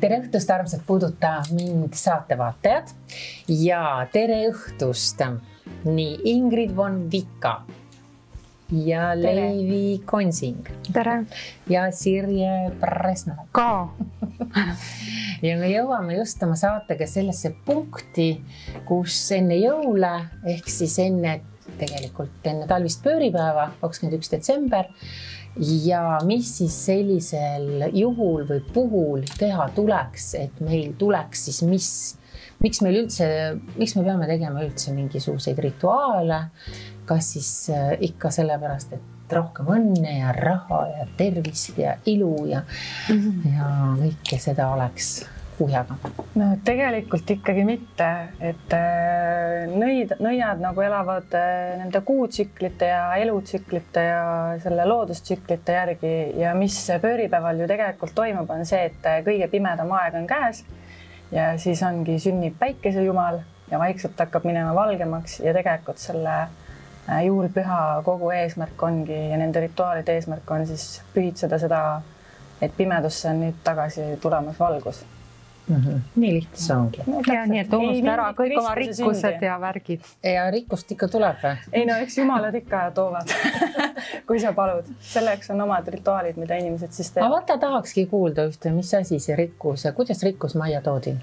Tere õhtust, armsad puudutab mind saatevaatajad ja tere õhtust nii Ingrid von Vika ja Leivi Konsing. Tere. Ja Sirje Presna. Ka. Ja me jõuame just oma saatega sellesse punkti, kus enne jõule, ehk siis tegelikult enne talvist pööripäeva, 21. detsember, ja mis siis sellisel juhul või puhul teha tuleks, et meil tuleks siis miks me peame tegema üldse mingisuguseid rituaale, kas siis ikka sellepärast, et rohkem õnne ja raha ja tervist ja ilu ja kõike seda oleks kuhjaga. No tegelikult ikkagi mitte, et nõiad nagu elavad nende kuutsüklite ja elutsüklite ja selle loodustsüklite järgi ja mis pööripäeval ju tegelikult toimub, on see, et kõige pimedam aeg on käes ja siis ongi sünnib päikesejumal ja vaikselt hakkab minema valgemaks ja tegelikult selle juulpüha kogu eesmärk ongi ja nende rituaalide eesmärk on siis pühitseda seda, et pimedusse on nüüd tagasi tulemas valgus. Nii lihtne see ongi. Ja nii, et unusta ära kõik oma rikkused ja värgid. Ja rikkust ikka tuleb või? Ei no, eks jumalad ikka toovad, kui sa palud. Selleks on omad rituaalid, mida inimesed siis teevad. Aga vaata tahakski kuulda ühte, mis asi see rikkus ja kuidas rikkus majja toodi?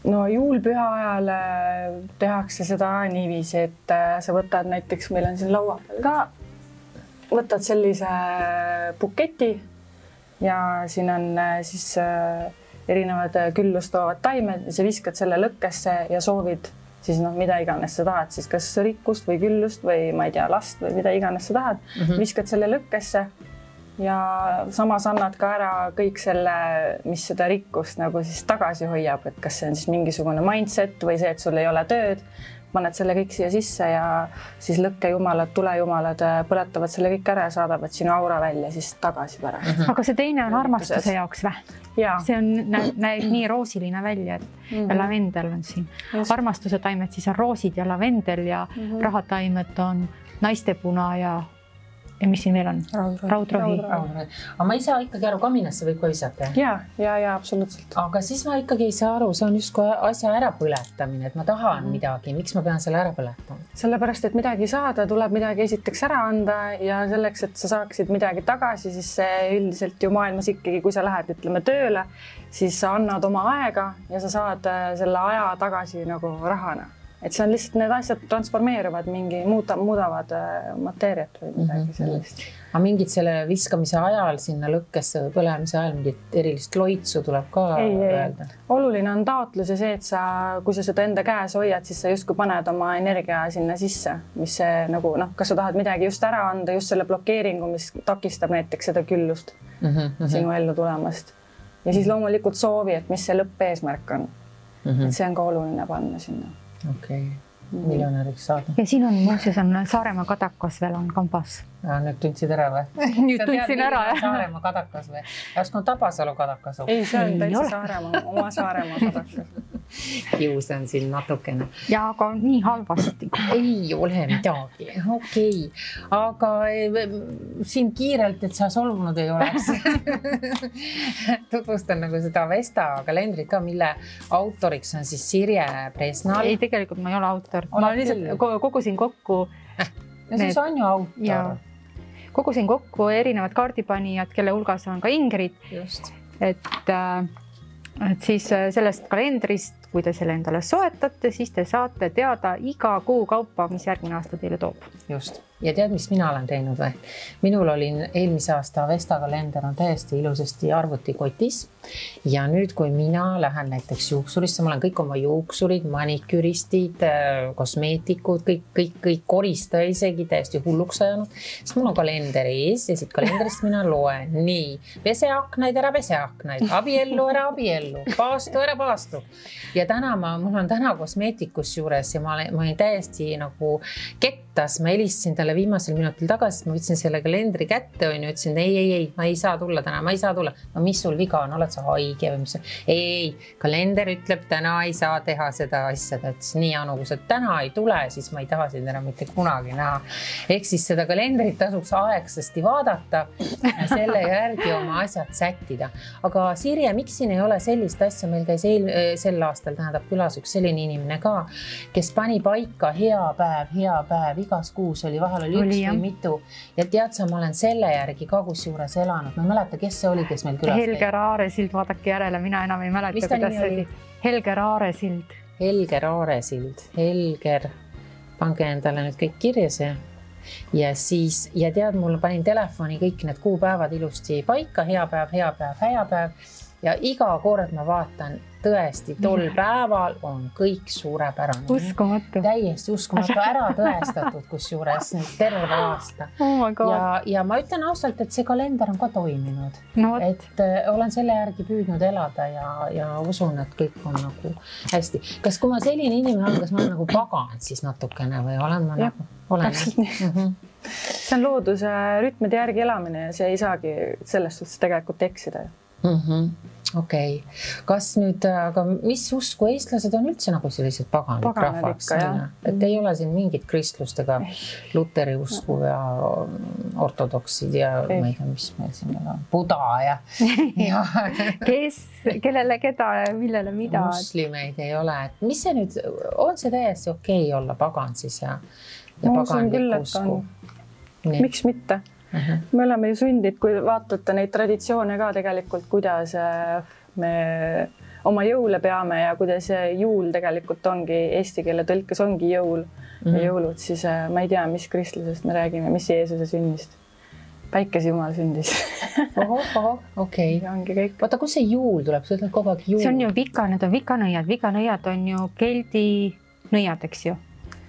No juulpüha ajal tehakse seda niiviisi, et sa võtad näiteks, meil on siin laua peal ka, võtad sellise buketi ja siin on siis erinevad küllust toovad taimed ja sa viskad selle lõkkesse ja soovid siis mida iganes sa tahad, siis kas rikkust või küllust või ma ei tea, last või mida iganes sa tahad, viskad selle lõkkesse ja samas annad ka ära kõik selle, mis seda rikkust nagu siis tagasi hoiab, et kas see on siis mingisugune mindset või see, et sul ei ole tööd, paned selle kõik siia sisse ja siis lõkkejumalad, tulejumalad põletavad selle kõik ära ja saadavad sinu aura välja siis tagasi pärast. Aga see teine on armastuse jaoks või? See on, näeb nii roosiline välja, et ja lavendel on siin. Armastuse taimed siis on roosid ja lavendel ja rahataimed on naistepuna ja mis siin veel on? Raudrohi. Aga ma ei saa ikkagi aru, kaminasse võib ka visata? Ja, absoluutselt. Aga siis ma ikkagi ei saa aru, see on just asja ärapõletamine, et ma tahan midagi. Miks ma pean selle ära põletama? Sellepärast, et midagi saada, tuleb midagi esiteks ära anda ja selleks, et sa saaksid midagi tagasi, siis see üldiselt ju maailmas ikkagi, kui sa lähed, ütleme, tööle, siis sa annad oma aega ja sa saad selle aja tagasi nagu rahana. Et see on lihtsalt, need asjad transformeeruvad, muudavad mateeriat või midagi sellist. Aga mingid selle viskamise ajal sinna lõkkesse või põlemise ajal mingit erilist loitsu tuleb ka öelda? Oluline on taotlus ja see, et kui sa seda enda käes hoiad, siis sa justkui paned oma energia sinna sisse, mis see nagu, kas sa tahad midagi just ära anda, just selle blokeeringu, mis takistab näiteks seda küllust sinu ellu tulemast. Ja siis loomulikult soovi, et mis see lõppeesmärk on. Et see on ka oluline panna sinna. Okei, miljonäriks saada. Ja siin on muuseas on Saaremaa kadakas veel on kambas. Nüüd tundsid ära või? Nüüd tundsin ära, jah. Saaremaa kadakas või? Äsku on Tabasalu kadakas. Ei, see on täitsa Saaremaa, oma Saaremaa kadakas. Kiusan siin natukene. Ja aga nii halvasti. Ei ole midagi. Okei. Aga siin kiirelt, et sa solvunud ei oleks. Tutvustan nagu seda Vesta kalendrit ka, mille autoriks on siis Sirje Presnal. Ei, tegelikult ma ei ole autor. Ma lihtsalt kogusin kokku. Ja siis on ju autor. Kogusin kokku erinevad kaardipanijad, kelle hulgas on ka Ingrid. Just. Et siis sellest kalendrist, kui te selle endale soetate, siis te saate teada iga kuu kaupa, mis järgmine aasta teile toob. Just. Ja tead, mis mina olen teinud või? Minul oli eelmise aasta Vesta kalender on täiesti ilusasti arvutikotis. Ja nüüd, kui mina lähen näiteks juuksurisse, ma olen kõik oma juuksurid, maniküristid, kosmeetikud, kõik koristaja isegi täiesti hulluks ajanud. Siis mul on kalender ees ja siit kalenderist mina loen. Nii, peseaknaid ära peseaknaid, abiellu ära abiellu, paastu ära paastu. Ja mul on täna kosmeetikus juures ja ma olin täiesti nagu kekk aitas, ma helistasin talle viimasel minutil tagasi, ma võtsin selle kalendri kätte, ütlesin, ei, ma ei saa tulla täna, ma ei saa tulla. No mis sul viga on, oled sa haige või mis? Ei, kalender ütleb, täna ei saa teha seda asja. Ta ütles, nii Anu, kui sa täna ei tule, siis ma ei taha sind enam mitte kunagi näha. Ehk siis seda kalendrit tasuks aegsasti vaadata ja selle järgi oma asjad sättida. Aga Sirje, miks siin ei ole sellist asja? Meil käis sel aastal tähendab külas üks selline inimene ka, kes pani paika hea päev, igas kuus oli, vahel oli üks või mitu. Ja tead sa, ma olen selle järgi ka kusjuures elanud. Ma ei mäleta, kes see oli, kes meil külas käi. Helger Aaresild, vaadake järele, mina enam ei mäleta, kuidas see oli. Helger Aaresild. Helger Aaresild. Helger, pange endale nüüd kõik kirja see. Ja siis, ja tead, mul panin telefoni kõik need kuupäevad ilusti paika, hea päev. Ja iga kord ma vaatan, tõesti, tol päeval on kõik suurepärane. Uskumatu. Täiesti uskumatu, ära tõestatud kusjuures terve aasta. Oh ja ma ütlen ausalt, et see kalender on ka toiminud. No, et olen selle järgi püüdnud elada ja usun, et kõik on nagu hästi. Kas kui ma selline inimene olen, kas ma olen nagu paganud siis natukene või olen ma nagu? Olen. See on looduse rütmide järgi elamine ja see ei saagi selles suhtes tegelikult eksida. Okei. Kas nüüd, aga mis usku eestlased on üldse nagu sellised paganid rahvaks? Et ei ole siin mingit kristlust ega luteri usku ja ortodoksid ja ma ei tea, mis meil siin on, Buda ja kes, kellele, keda, millele, mida? Muslimeid ei ole. Et mis see nüüd, on see täiesti okei olla pagan siis ja paganlik usku? Miks mitte? Me oleme ju sundid, kui vaatate neid traditsioone ka tegelikult, kuidas me oma jõule peame ja kuidas juul tegelikult ongi, eesti keele tõlkes ongi jõul ja jõulud, siis ma ei tea, mis kristlusest me räägime, mis Jeesuse sünnist. Päikese Jumal sündis. Okei. Ongi kõik. Vaata, kus see juul tuleb? See ütleb kogu aeg juul. See on ju need on vikanõiad. Vikanõiad on ju keldi nõiad, eks ju?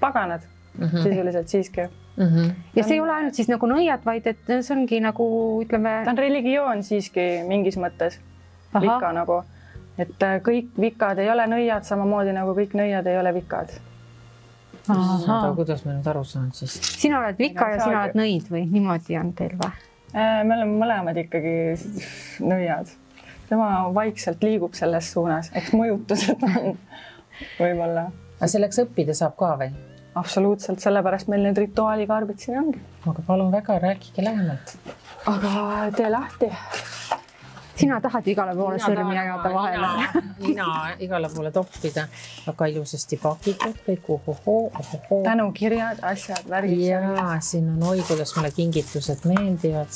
Paganad sisuliselt siiski. Ja see ei ole ainult siis nagu nõiad, vaid et see ongi nagu, ütleme... Ta on religioon siiski mingis mõttes. Vika nagu. Et kõik vikad ei ole nõiad, samamoodi nagu kõik nõiad ei ole vikad. Kuidas me nüüd aru saan siis? Sina oled vika ja sina oled nõid või niimoodi on teil või? Me oleme mõlemad ikkagi nõiad. Tema vaikselt liigub selles suunas, eks mõjutused on võib-olla. Aga selleks õppida saab ka või? Absoluutselt, sellepärast meil need rituaalikarbid siin ongi. Aga palun väga, rääkige lähemalt. Aga tee lahti. Sina tahad igale poole sõrmi jagada vahele. Mina igale poole toppida. Väga ilusasti pakitud kõik. Tänukirjad, asjad, värgid. Jaa, siin on oi, kuidas mulle kingitused meeldivad.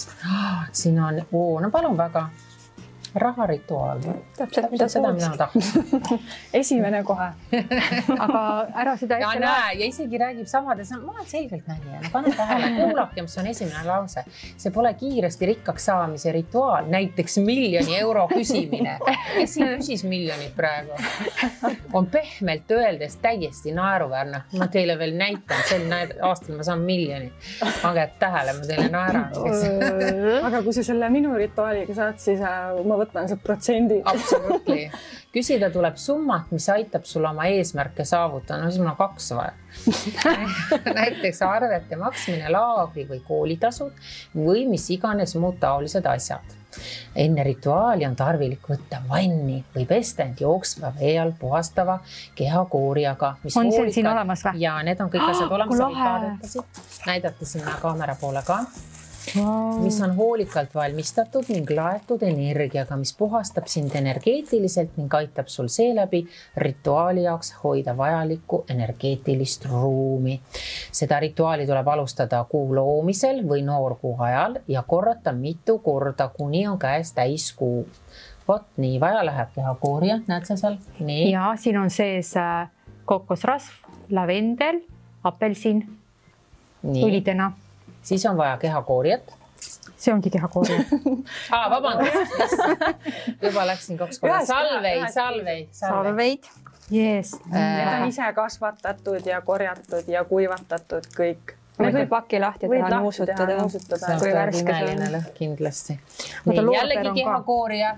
Siin on, no palun väga. Raharituaal. Täpselt seda, mida ma tahaks. Esimene kohe. Aga ära seda ja näe, ja isegi räägib samades, ma olen selgelt nägija. Pane tähele, kuulake, mis on esimene lause. See pole kiiresti rikkaks saamise rituaal, näiteks 1 000 000 euro küsimine. Kes siin küsis miljonit praegu? On pehmelt öeldes täiesti naeruväärne. Ma teile veel näitan, sel aastal ma saan 1 000 000. Pange tähele, ma teile naeran. Aga kui sa selle minu rituaaliga saad, siis ma võtan see protsendi. Absoluutli. Küsida tuleb summat, mis aitab sul oma eesmärke saavutada. No siis mul on 2 vaja. Näiteks arvete maksmine, laagri või koolitasud või mis iganes muud taolised asjad. Enne rituaali on tarvilik võtta vanni või pestend jooksva vee all puhastava kehakooriaga. On see siin olemas või? Ja need on kõik asjad olemas. Näidata sinna kaamera poole ka. Mis on hoolikalt valmistatud ning laetud energiaga, mis puhastab sind energeetiliselt ning aitab sul seeläbi rituaali jaoks hoida vajalikku energeetilist ruumi. Seda rituaali tuleb alustada kuu loomisel või noorkuu ajal ja korrata mitu korda, kuni on käes täiskuu. Vot nii, vaja läheb kehakoorija, näed sa seal? Nii. Ja siin on sees kokosrasv, lavendel, apelsin, õlidena. Siis on vaja kehakoorijat. See ongi kehakoorija. Vabandust. Juba läksin 2 korda. Salveid. Yes. Need on ise kasvatatud ja korjatud ja kuivatatud kõik. Need võib paki lahti teha, nuusutada. Kui värske see on. Kindlasti. Jällegi kehakoorija.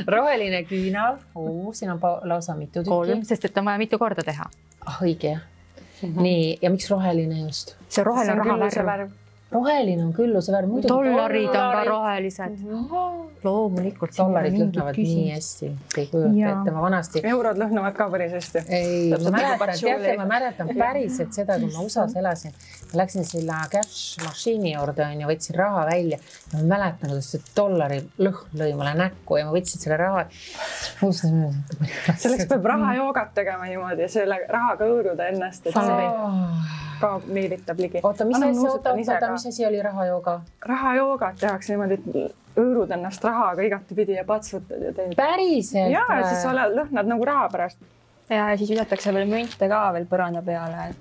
Roheline küünal. Siin on lausa mitu tükki. 3, sest et on vaja mitu korda teha. Õige jah. Nii, ja miks roheline just? See roheline on raha värv. Roheline on külluse värv. Dollarid on ka rohelised. Loomulikult. Dollarid lõhnavad nii hästi. Ei kujuta ette, ma vanasti... Eurod lõhnavad ka päris hästi. Ei, ma mäletan päriselt seda, kui ma USAs elasin. Ma läksin selle cash mašiini juurde ja võtsin raha välja. Ma mäletan, kuidas see dollari lõhn lõi mulle näkku ja ma võtsin selle raha. Selleks peab rahajoogat tegema niimoodi ja selle rahaga õõruda ennast. Ka meelitab ligi. Oota, mis asi oli rahajooga? Rahajoogat tehakse niimoodi, et õõrud ennast rahaga igatepidi ja patsutad ja teed. Päriselt? Ja siis lõhnad nagu raha pärast. Ja siis visatakse veel münte ka veel põranda peale, et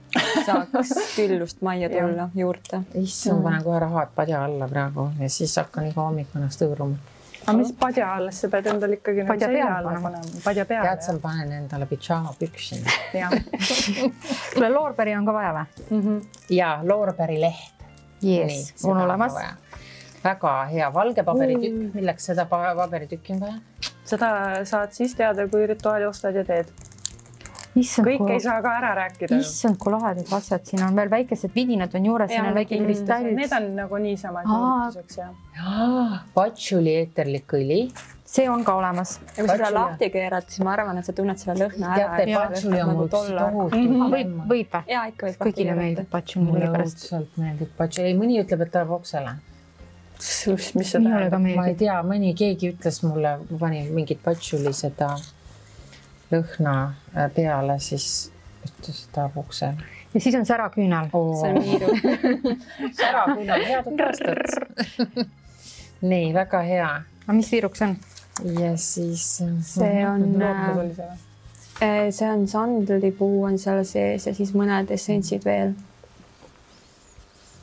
saaks küllust majja tulla juurde. Issand, panen kohe rahad padja alla praegu ja siis hakkan iga hommik ennast õõruma. Aga mis padja alles, sa pead endal ikkagi padja peale panema. Padja peale. Tead, sa panen endale pidžaama püksi. Kuule, loorberi on ka vaja või? Ja, loorberi leht. Yes, on olemas. Väga hea valge paberitükk. Milleks seda paberitükki on vaja? Seda saad siis teada, kui rituaali ostad ja teed. Kõik ei saa ka ära rääkida. Issand, kui lahedad asjad. Siin on veel väikesed vidinad on juures, siin on väike kristallid. Need on nagu niisama juurtuseks. Patšuli eeterlik õli. See on ka olemas. Ja kui seda lahti keerad, siis ma arvan, et sa tunned selle lõhna ära. Teate, patšuli on mul tohutu. Võib või? Jaa, ikka võib. Kõigile meeldib patšuli. Mulle õudselt meeldib patšuli. Mõni ütleb, et ta läheb oksele. Mis see tähendab? Ma ei tea, keegi ütles mulle, ma panin mingit patšuli seda lõhna peale, siis ütles ta puksel. Ja siis on säraküünal. See on miiru. Säraküünal, head aastat. Nii, väga hea. Aga mis viiruks on? Ja siis... See on sandlipuu on seal sees ja siis mõned essentsid veel.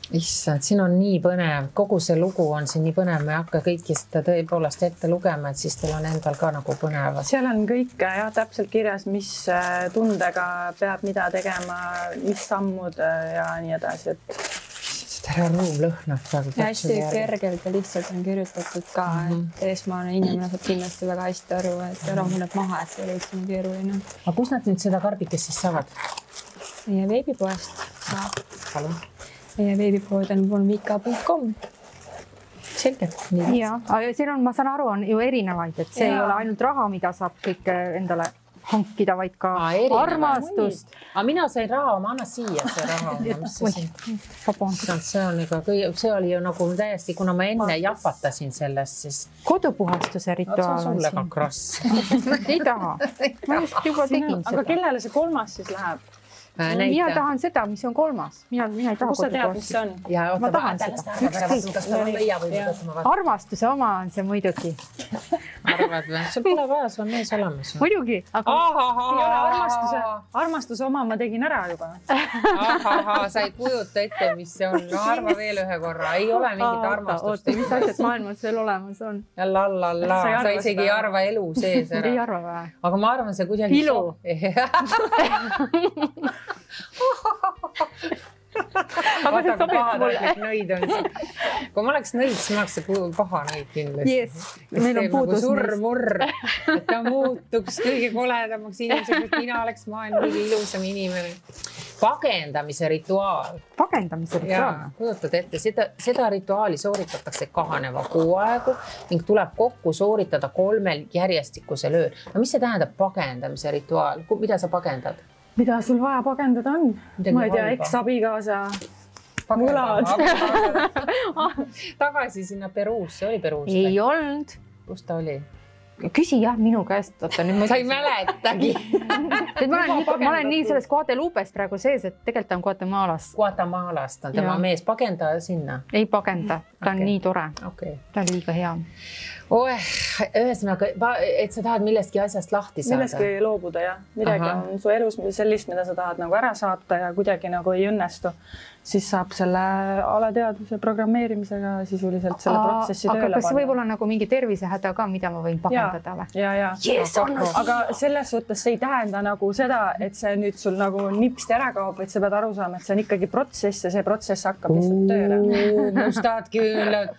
Issand, siin on nii põnev. Kogu see lugu on siin nii põnev. Me ei hakka kõiki seda tõepoolest ette lugema, et siis teil on endal ka nagu põnev. Seal on kõik täpselt kirjas, mis tundega peab mida tegema, mis sammud ja nii edasi. Tere ruum lõhnab. Ja hästi kergelt ja lihtsalt on kirjutatud ka, et eesmaane inimene saab kindlasti väga hästi aru, et rahuneb maha, et see ei üldse nii keeruline. Aga kus nad nüüd seda karbikest siis saavad? Meie veebipoest saab. Palun. Meie veebipood on volmika.com. Selge. Ja, aga siin on, ma saan aru, on ju erinevaid, et see ei ole ainult raha, mida saab kõik endale hankida, vaid ka armastust. Aga mina sain raha, ma annan siia see raha. See oli ju nagu täiesti, kuna ma enne jahvatasin sellest, siis... Kodupuhastuse rituaal on sulle ka krass. Ei taha. Ma just juba tegin seda. Aga kellele see kolmas siis läheb? Mina tahan seda, mis on kolmas. Mina ei taha kus sa tead, mis see on? Ma tahan seda. Armastuse oma on see muidugi. Arvad või? Sul pole vaja, sul on mees olemas. Muidugi. Armastuse oma ma tegin ära juba. Sa ei kujuta ette, mis see on. No arva veel ühe korra. Ei ole mingit armastust. Mis asjad maailmas veel olemas on? Lallalla. Sa isegi ei arva elu sees ära. Ei arva või? Aga ma arvan, see kuidagi... Ilu. Aga see sobib mulle. Nõid on siin. Kui ma oleks nõid, siis ma oleks see paha nõid kindlasti. Yes. Meil on puudus surmurr, et ta muutuks kõige koledamaks inimeseks, et mina oleks maailma kõige ilusam inimene. Pagendamise rituaal. Pagendamise rituaal? Kujutad ette, seda rituaali sooritatakse kahaneva kuu aegu ning tuleb kokku sooritada 3 järjestikusel ööl. No mis see tähendab pagendamise rituaal? Mida sa pagendad? Mida sul vaja pagendada on? Ma ei tea, eks-abikaasa võlad. Tagasi sinna Peruusse, oli Peruus? Ei olnud. Kus ta oli? Küsi jah minu käest. Sa ei mäletagi. Ma olen nii selles Guadeloupes praegu sees, et tegelikult on Guatemalast. Guatemalast on tema mees. Pagenda sinna? Ei pagenda. Ta on nii tore. Ta on liiga hea. Ühesõnaga, et sa tahad millestki asjast lahti saada. Millestki loobuda, jah. Midagi on su elus sellist, mida sa tahad nagu ära saata ja kuidagi nagu ei õnnestu. Siis saab selle alateadvuse programmeerimisega sisuliselt selle protsessi tööle panna. Aga kas võib olla nagu mingi tervisehäda ka, mida ma võin pagendada või? Ja. Aga selles suhtes see ei tähenda nagu seda, et see nüüd sul nagu nipsti ära kaob, et sa pead aru saama, et see on ikkagi protsess ja see protsess hakkab lihtsalt tööle. Mustad küülad.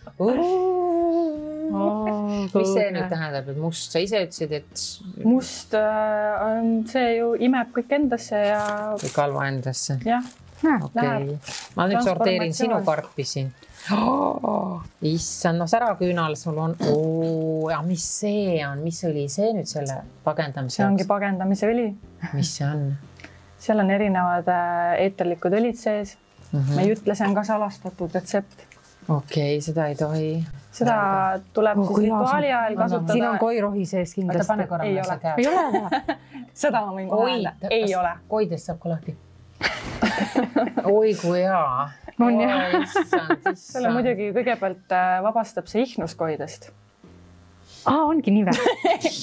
mis see nüüd tähendab, et must, sa ise ütlesid, et must on see ju imeb kõik endasse ja kõik halva endasse. Jah, okei. Ma nüüd sorteerin sinu karpi siin. Issand, no säraküünal sul on. Ja mis see on? Mis oli see nüüd selle pagendamise? See ongi pagendamise õli. Mis see on? Seal on erinevad eeterlikud õlid sees. Ma ei ütle, see on ka salastatud retsept. Okei, seda ei tohi. Seda tuleb siis rituaali ajal kasutada. Siin on koirohi sees kindlasti. Pane korra ei ole. Ei ole. Seda ma võin öelda. Ei ole. Koidest saab ka lahti. Oi kui hea. On jah. Selle muidugi kõigepealt vabastab see ihnuskoidest. Ongi nii või?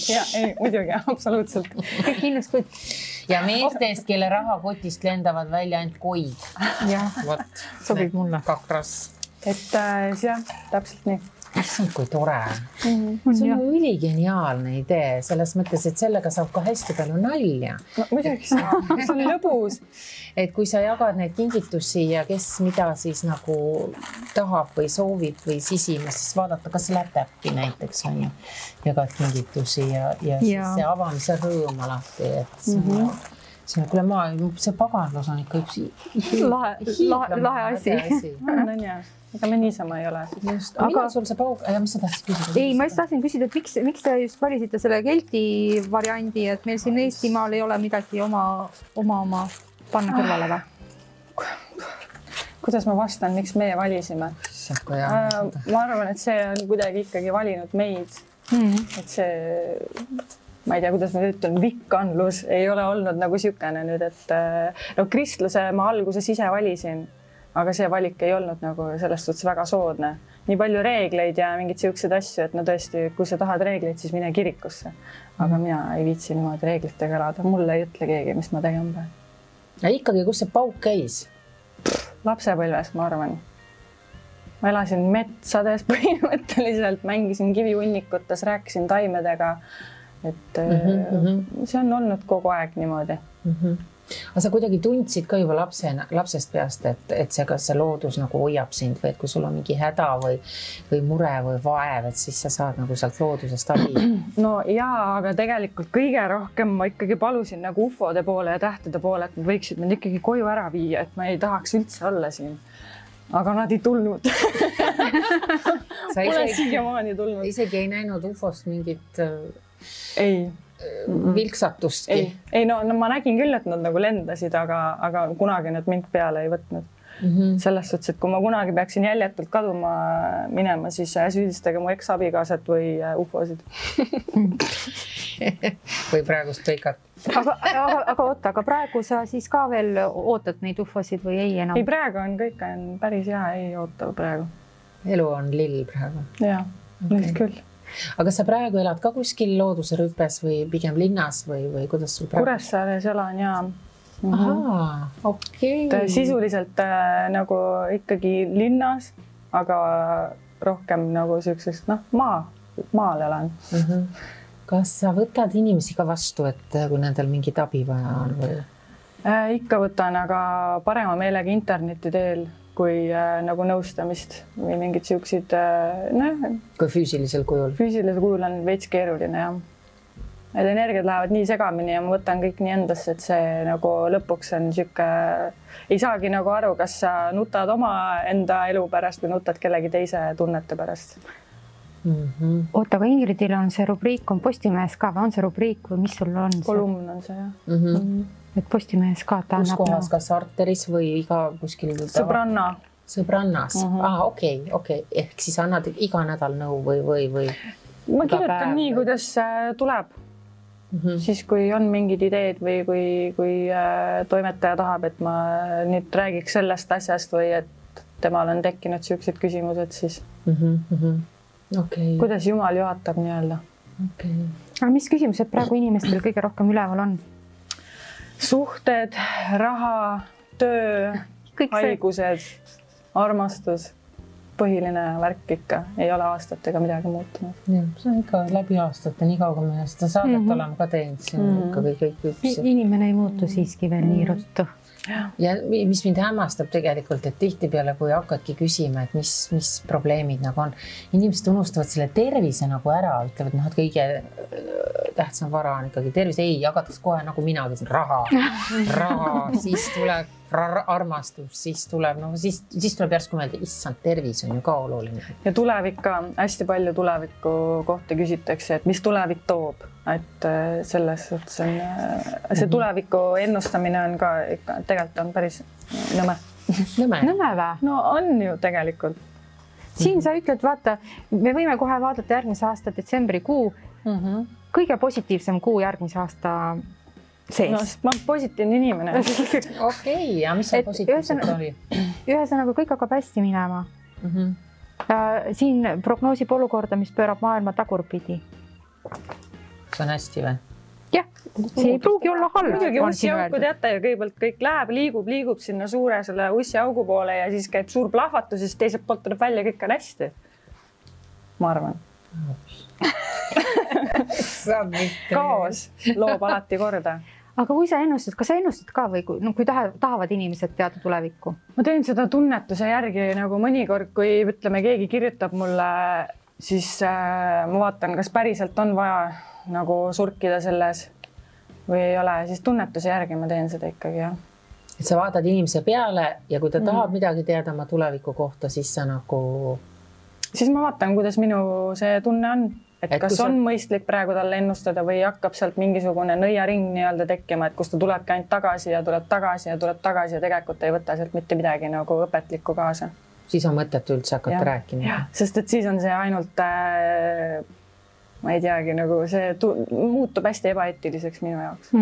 Ja, ei, muidugi, absoluutselt. Kõik ihnuskoid. Ja meestest, kelle rahakotist lendavad välja ainult koid. Jah, sobib mulle. Kakras. Et jah, täpselt nii. Issand, kui tore. See on üligeniaalne idee, selles mõttes, et sellega saab ka hästi palju nalja. No muidugi see on lõbus. Et kui sa jagad neid kingitusi ja kes mida siis nagu tahab või soovib või sisima, siis vaadata, kas läheb täppi näiteks on ju. Jagad kingitusi ja siis see avamise rõõm alati, et see on, kuule see paganlus on ikka üks lahe asi. On jah. Ega me niisama ei ole. Aga sul see paug... Ja mis sa tahtsid küsida? Ei, ma just tahtsin küsida, et miks te just valisite selle kelti variandi, et meil siin Eestimaal ei ole midagi oma panna kõrvale või? Kuidas ma vastan, miks meie valisime? Ma arvan, et see on kuidagi ikkagi valinud meid. Et see, ma ei tea, kuidas ma ütlen, vikkanlus ei ole olnud nagu sükene nüüd, et kristluse ma alguses ise valisin. Aga see valik ei olnud nagu selles suhtes väga soodne. Nii palju reegleid ja mingid siuksed asju, et no tõesti, kui sa tahad reegleid, siis mine kirikusse. Aga mina ei viitsi niimoodi reeglitega elada. Mulle ei ütle keegi, mis ma tegema pean. Ja ikkagi, kus see pauk käis? Lapsepõlves, ma arvan. Ma elasin metsades põhimõtteliselt, mängisin kivihunnikutes, rääkisin taimedega. Et see on olnud kogu aeg niimoodi. Aga sa kuidagi tundsid ka juba lapsest peast, et kas see loodus nagu hoiab sind või et kui sul on mingi häda või mure või vaev, et siis sa saad nagu sealt loodusest abi. No jaa, aga tegelikult kõige rohkem ma ikkagi palusin nagu ufode poole ja tähtede poole, et nad võiksid mind ikkagi koju ära viia, et ma ei tahaks üldse olla siin. Aga nad ei tulnud. Pole siiamaani tulnud. Isegi ei näinud ufost mingit... Ei. Vilksatustki. Ei, no ma nägin küll, et nad nagu lendasid, aga kunagi nad mind peale ei võtnud. Selles suhtes, et kui ma kunagi peaksin jäljetult kaduma minema, siis süüdistage mu eks-abikaasat või ufosid. Või praegust peikat. Aga praegu sa siis ka veel ootad neid ufosid või ei enam? Ei, praegu on kõik päris hea, ei oota praegu. Elu on lill praegu. Jaa, nüüd küll. Aga sa praegu elad ka kuskil looduse rüpes või pigem linnas või kuidas sul praegu? Kuressaares elan ja... Ahaa, okei. Sisuliselt nagu ikkagi linnas, aga rohkem nagu sellisest, maal elan. Kas sa võtad inimesi ka vastu, et kui nendel mingit abi vaja on või? Ikka võtan, aga parema meelega interneti teel kui nagu nõustamist või mingid siuksid, kui füüsilisel kujul? Füüsilisel kujul on veits keeruline, jah. Need energiad lähevad nii segamini ja ma võtan kõik nii endasse, et see nagu lõpuks on siuke... Ei saagi nagu aru, kas sa nutad oma enda elu pärast või nutad kellegi teise tunnete pärast. Oota, aga Ingridil on see rubriik, on Postimehes ka, või on see rubriik või mis sul on? Kolumn on see, jah. Et Postimehes ka ta annab... Kus kohas, kas Arteris või iga kuskil... Sõbrannas. Okei. Ehk siis annad iga nädal nõu või... Ma kirjutan nii, kuidas tuleb. Siis, kui on mingid ideed või kui toimetaja tahab, et ma nüüd räägiks sellest asjast või et temal on tekkinud siuksed küsimused, siis... Kuidas Jumal juhatab nii-öelda. Aga mis küsimused praegu inimestel kõige rohkem üleval on? Suhted, raha, töö, haigused, armastus, põhiline värk ikka. Ei ole aastatega midagi muutunud. See on ikka läbi aastate, nii kauga me seda saadet oleme ka teinud. Inimene ei muutu siiski veel nii ruttu. ja mis mind hämmastab tegelikult, et tihtipeale, kui hakkadki küsima, et mis probleemid nagu on, inimesed unustavad selle tervise nagu ära, ütlevad, et kõige tähtsam vara on ikkagi tervis. Ei, jagatakse kohe nagu minagi, raha, siis tuleb armastus, siis tuleb järsku mõelda, issand, tervis on ju ka oluline. Ja tulevik ka, hästi palju tuleviku kohta küsitakse, et mis tulevik toob, et selles suhtes on, see tuleviku ennustamine on ka ikka, tegelikult on päris nõme. Nõme vä? No on ju tegelikult. Siin sa ütled, vaata, me võime kohe vaadata järgmise aasta detsembrikuu, kõige positiivsem kuu järgmise aasta sees. No, sest ma olen positiivne inimene. Okei, ja mis see positiivselt oli? Ühesõnaga, kõik hakkab hästi minema. Siin prognoosib olukorda, mis pöörab maailma tagurpidi. See on hästi või? Jah, see ei pruugi olla halb. Muidugi ussiauku teate ja kõigepealt kõik läheb, liigub sinna suure selle ussiaugu poole ja siis käib suur plahvatus ja siis teiselt poolt tuleb välja, kõik on hästi. Ma arvan. Kaos loob alati korda. Aga kui sa ennustad, kas sa ennustad ka või kui tahavad inimesed teada tulevikku? Ma teen seda tunnetuse järgi nagu mõnikord, kui ütleme, keegi kirjutab mulle, siis ma vaatan, kas päriselt on vaja nagu surkida selles või ei ole, siis tunnetuse järgi ma teen seda ikkagi, jah. Et sa vaatad inimese peale ja kui ta tahab midagi teada oma tuleviku kohta, siis sa nagu... Siis ma vaatan, kuidas minu see tunne on. Et kas on mõistlik praegu talle ennustada või hakkab sealt mingisugune nõiaring nii-öelda tekkima, et kus ta tulebki ainult tagasi ja tuleb tagasi ja tegelikult ei võta sealt mitte midagi nagu õpetlikku kaasa. Siis on mõtet üldse hakata rääkima. Sest et siis on see ainult, ma ei teagi, nagu see muutub hästi ebaeetiliseks minu jaoks.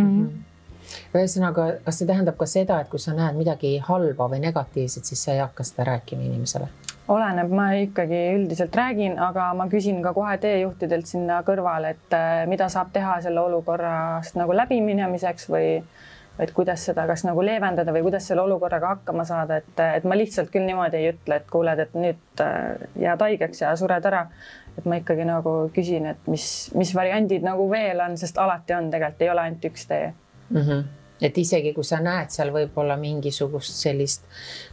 Ühesõnaga, kas see tähendab ka seda, et kui sa näed midagi halba või negatiivset, siis sa ei hakka seda rääkima inimesele? Oleneb, ma ikkagi üldiselt räägin, aga ma küsin ka kohe teejuhtidelt sinna kõrvale, et mida saab teha selle olukorrast nagu läbiminemiseks või kuidas seda kas nagu leevendada või kuidas selle olukorraga hakkama saada, et ma lihtsalt küll niimoodi ei ütle, et kuuled, et nüüd jääd haigeks ja sured ära. Et ma ikkagi nagu küsin, et mis variandid nagu veel on, sest alati on tegelikult, ei ole ainult üks tee. Et isegi kui sa näed seal võib-olla mingisugust sellist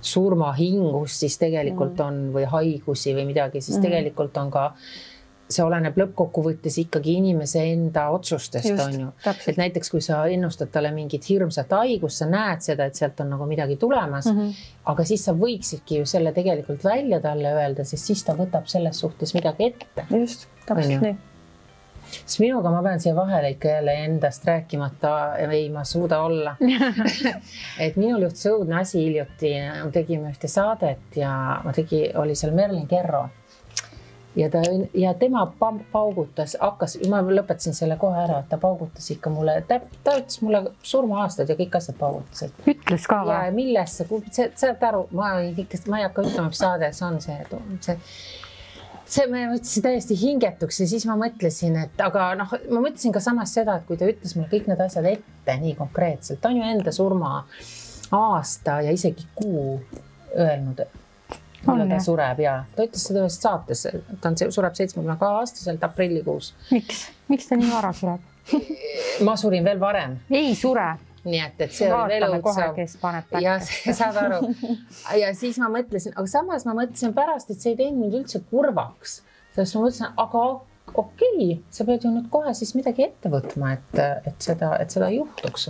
surmahingust, siis tegelikult on või haigusi või midagi, siis tegelikult on ka, see oleneb lõppkokkuvõttes ikkagi inimese enda otsustest. Just, on ju. Täpselt. Et näiteks kui sa ennustad talle mingit hirmsat haigust, sa näed seda, et sealt on nagu midagi tulemas, aga siis sa võiksidki ju selle tegelikult välja talle öelda, sest siis ta võtab selles suhtes midagi ette. Just, täpselt nii. Siis minuga ma pean siia vahele ikka jälle endast rääkimata, ei ma suuda olla. Et minul juhtus õudne asi hiljuti, tegime ühte saadet ja oli seal Merlin Kerro ja tema paugutas, ma lõpetasin selle kohe ära, et ta paugutas ikka mulle, ta ütles mulle surmaaastad ja kõik asjad paugutasid. Ütles ka või? Ja millesse, saad aru, ma ei hakka ütlema, mis saade see on see me mõtlesin täiesti hingetuks ja siis ma mõtlesin, et aga ma mõtlesin ka samas seda, et kui ta ütles mulle kõik need asjad ette nii konkreetselt, ta on ju enda surma aasta ja isegi kuu öelnud, millal ta sureb ja ta ütles seda ühes saates, ta sureb 72-aastaselt aprillikuus. Miks ta nii vara sureb? Ma surin veel varem. Ei sure. Nii et see oli veel õudsav. Ja saad aru. Ja siis ma mõtlesin, aga samas ma mõtlesin pärast, et see ei teinud mind üldse kurvaks. Sest ma mõtlesin, aga okei, sa pead ju nüüd kohe siis midagi ette võtma, et seda juhtuks.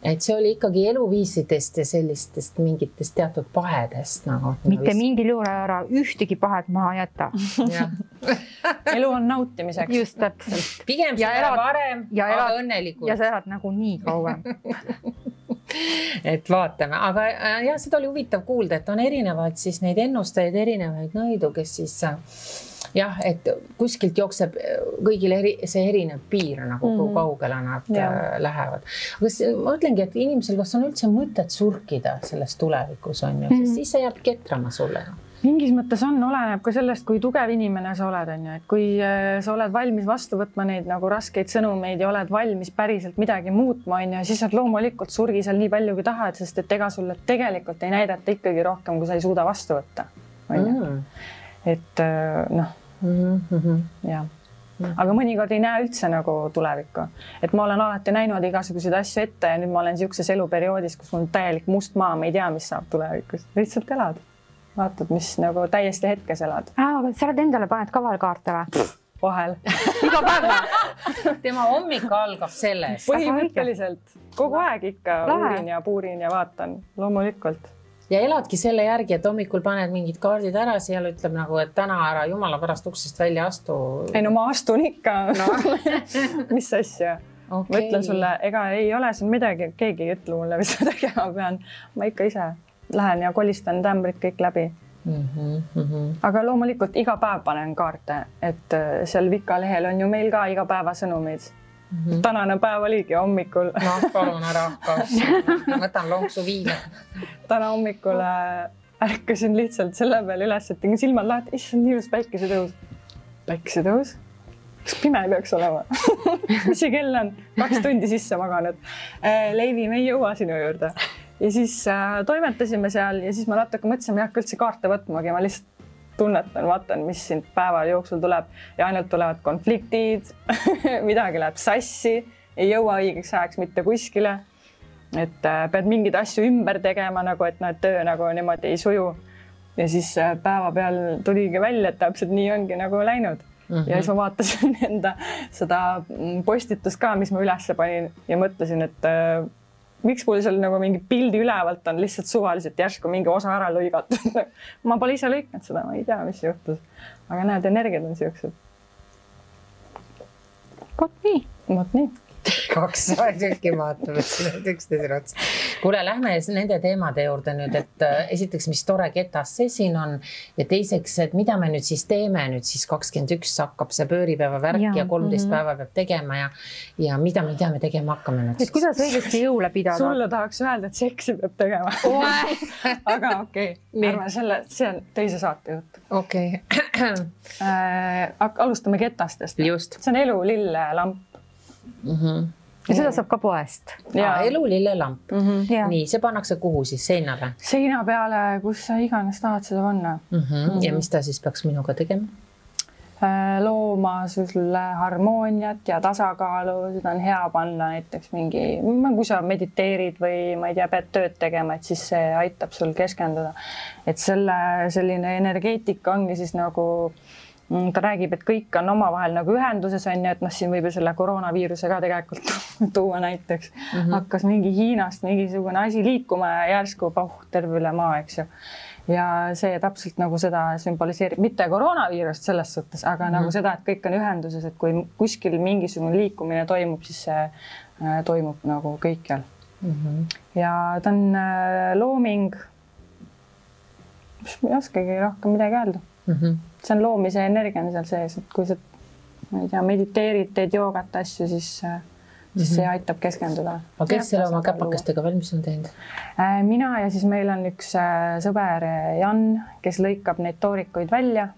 Et see oli ikkagi eluviisidest ja sellistest mingitest teatud pahedest. Mitte mingil juurde ära ühtegi pahed maha jätta. Elu on nautimiseks. Just täpselt. Pigem seda varem, aga õnnelikult. Ja sa elad nagu nii kauem. Et vaatame, aga jah, seda oli huvitav kuulda, et on erinevaid siis neid ennustajaid, erinevaid nõidu, kes siis jah, et kuskilt jookseb kõigil see erinev piir, nagu kui kaugele nad lähevad. Aga ma ütlengi, et inimesel, kas on üldse mõtet surkida selles tulevikus on ju, sest siis see jääb ketrama sulle. Mingis mõttes oleneb ka sellest, kui tugev inimene sa oled, on ju, et kui sa oled valmis vastu võtma neid nagu raskeid sõnumeid ja oled valmis päriselt midagi muutma, on ju, siis on loomulikult surgi seal nii palju, kui tahad, sest et ega sulle tegelikult ei näidata ikkagi rohkem, kui sa ei suuda vastu võtta. On ju. Et jah. aga mõnikord ei näe üldse nagu tulevikku. Et ma olen alati näinud igasuguseid asju ette ja nüüd ma olen niisuguses eluperioodis, kus mul on täielik must maa, ma ei tea, mis saab tulevikus. Lihtsalt elad. Vaatad, mis nagu täiesti hetkes elad. Aga sa oled endale paned kavalkaarte või? Vahel. Iga päev. Tema hommik algab sellest. Põhimõtteliselt kogu aeg ikka uurin ja puurin ja vaatan, loomulikult. Ja eladki selle järgi, et hommikul paned mingid kaardid ära, seal ütleb nagu, et täna ära jumala pärast uksest välja astu. Ei no ma astun ikka. No. Mis asja? Okay. Ma ütlen sulle, ega ei ole siin midagi, keegi ei ütle mulle, mis ma tegema pean. Ma ikka ise lähen ja kolistan tämbrid kõik läbi. Aga loomulikult iga päev panen kaarte, et seal Vika lehel on ju meil ka iga päeva sõnumid. Tänane päev oligi hommikul. No, palun ära hakka. Võtan lonksu viina. Täna hommikul ärkasin lihtsalt selle peale üles, et tegin silmad lahti. Issand, nii ilus päikesetõus. Päikesetõus? Kas pime peaks olema? Mis see kell on? 2 tundi sisse maganud. Leivi, me ei jõua sinu juurde. Ja siis toimetasime seal ja siis ma natuke mõtlesin, ma ei hakka üldse kaarte võtmagi, ma lihtsalt tunnetan, vaatan, mis siin päeva jooksul tuleb ja ainult tulevad konfliktid, midagi läheb sassi, ei jõua õigeks ajaks mitte kuskile, et pead mingeid asju ümber tegema, nagu et töö nagu niimoodi ei suju. Ja siis päeva peal tuligi välja, et täpselt nii ongi nagu läinud. Ja siis ma vaatasin enda seda postitust ka, mis ma üles panin ja mõtlesin, et miks mul seal nagu mingi pildi ülevalt on lihtsalt suvaliselt järsku mingi osa ära lõigatud. Ma pole ise lõiknud seda, ma ei tea, mis juhtus. Aga näed, energiad on siuksed. Vot nii. 2 tükki vaatavad üksteisele otsa. Kuule, lähme nende teemade juurde nüüd, et esiteks, mis tore ketas see siin on ja teiseks, et mida me nüüd siis teeme nüüd siis 21 hakkab see pööripäeva värk ja 13 päeva peab tegema ja mida me tegema hakkame nüüd siis? Kuidas õigesti jõule pidada? Sulle tahaks öelda, et seksi peab tegema. Aga okei. Arvan, see on teise saate jutt. Okei. Alustame ketastest. Just. See on elulille lamp. Ja seda saab ka poest. Elulille lamp. Nii, see pannakse kuhu siis? Seinale? Seina peale, kus sa iganes tahad seda panna. Ja mis ta siis peaks minuga tegema? Looma sulle harmooniat ja tasakaalu, seda on hea panna näiteks mingi, kui sa mediteerid või ma ei tea, pead tööd tegema, et siis see aitab sul keskenduda. Et selline energeetika ongi siis nagu ta räägib, et kõik on omavahel nagu ühenduses on ja et siin võib selle koroonaviiruse ka tegelikult tuua näiteks. Hakkas mingi Hiinast mingisugune asi liikuma ja järsku terve üle maa, eks ju. Ja see täpselt nagu seda sümboliseerib, mitte koroonaviirust selles suhtes, aga nagu seda, et kõik on ühenduses, et kui kuskil mingisugune liikumine toimub, siis see toimub nagu kõikjal. Ja ta on looming, ma ei oskagi rohkem midagi öelda. See on loomise energia on seal sees, et kui sa ma ei tea, mediteerid, teed joogat asju, siis see aitab keskenduda. Aga kes selle oma käpakestega valmis on teinud? Mina ja siis meil on üks sõber Jan, kes lõikab neid toorikuid välja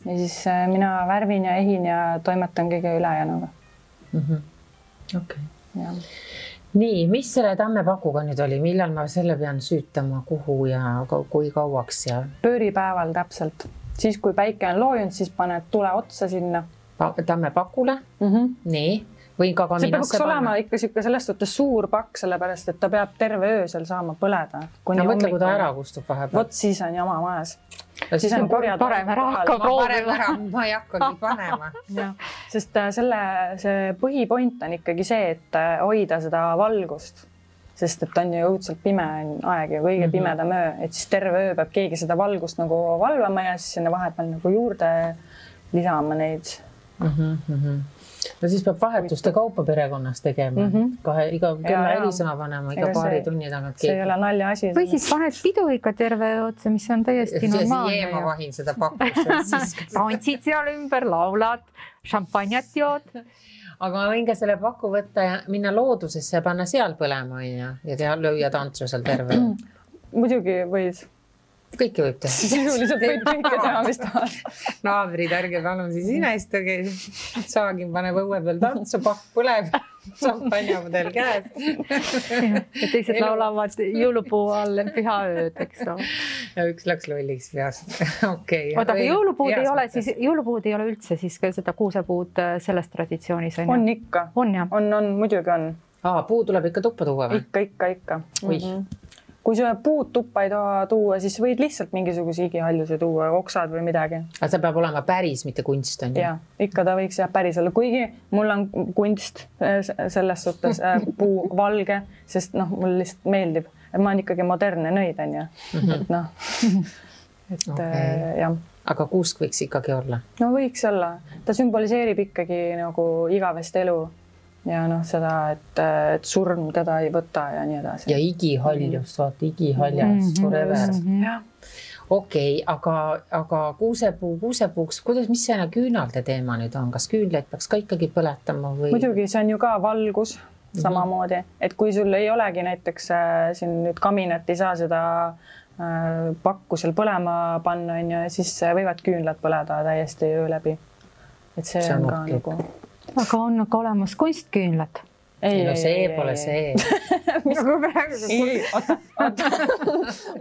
ja siis mina värvin ja ehin ja toimetan kõige ülejäänuga. Okei. Nii, mis selle tammepakuga nüüd oli? Millal ma selle pean süütama, kuhu ja kui kauaks? Pööripäeval täpselt. Siis, kui päike on loojunud, siis paned tule otsa sinna. Tammepakule? Nii. Või ka see peaks olema ikka selles suhtes suur pakk, sellepärast, et ta peab terve öö seal saama põleda. No mõtle, kui ta ära kustub vahepeal. Vot siis on jama majas. Siis on parem ära hakka proovima. Ma ei hakkagi panema. Sest see põhipoint on ikkagi see, et hoida seda valgust. Sest et on ju õudselt pime aeg ja kõige pimedam öö, et siis terve öö peab keegi seda valgust nagu valvama ja siis sinna vahepeal nagu juurde lisama neid. No siis peab vahetuste kaupa perekonnas tegema. Iga kella helisõna panema, iga paari tunni tagant. See ei ole nalja asi. Või siis paned pidu ikka terve otsa, mis on täiesti normaalne. Ja siis ma vahin seda pakkus. Tantsid seal ümber, laulad, šampanjat jood. Aga ma võin ka selle paku võtta ja minna loodusesse ja panna seal põlema ja lüüa tantsu seal terve. Muidugi võid. Kõike võib teha. Sisuliselt võid kõike teha, mis tahad. Naabrid, ärge palun siis inestuge. Saagin paneb õue peal tantsu, pakk põleb. šampanjapudel käes. Ja teised laulavad jõulupuu all pühaööd, eks ole. Ja üks läks lolliks peast. Okay. Oota, aga jõulupuud ei ole üldse siis ka seda kuusepuud selles traditsioonis? On ikka. On jah? On, muidugi on. Puu tuleb ikka tuppa tuua või? Ikka. Kui sa puud tuppa ei taha tuua, siis võid lihtsalt mingisuguse igihaljuse tuua, oksad või midagi. Aga see peab olema päris, mitte kunst on ju? Ja, ikka ta võiks päris olla. Kuigi mul on kunst selles suhtes puu valge, sest mul lihtsalt meeldib. Ma olen ikkagi modernne nõid, on ju. Jah. Aga kuusk võiks ikkagi olla? No võiks olla. Ta sümboliseerib ikkagi nagu igavest elu. Ja seda, et surm teda ei võta ja nii edasi. Ja igihaljust, vaata igihaljas forever. Okei, aga kuusepuuks, mis see küünalde teema nüüd on? Kas küünleid peaks ka ikkagi põletama või? Muidugi, see on ju ka valgus samamoodi. Et kui sul ei olegi näiteks siin nüüd kaminat, ei saa seda pakku seal põlema panna, siis võivad küünlad põleda täiesti öö läbi. Et see on ka nagu... Aga on ka olemas kunstküünlad? Ei, see pole see. Nagu praegu. Oota.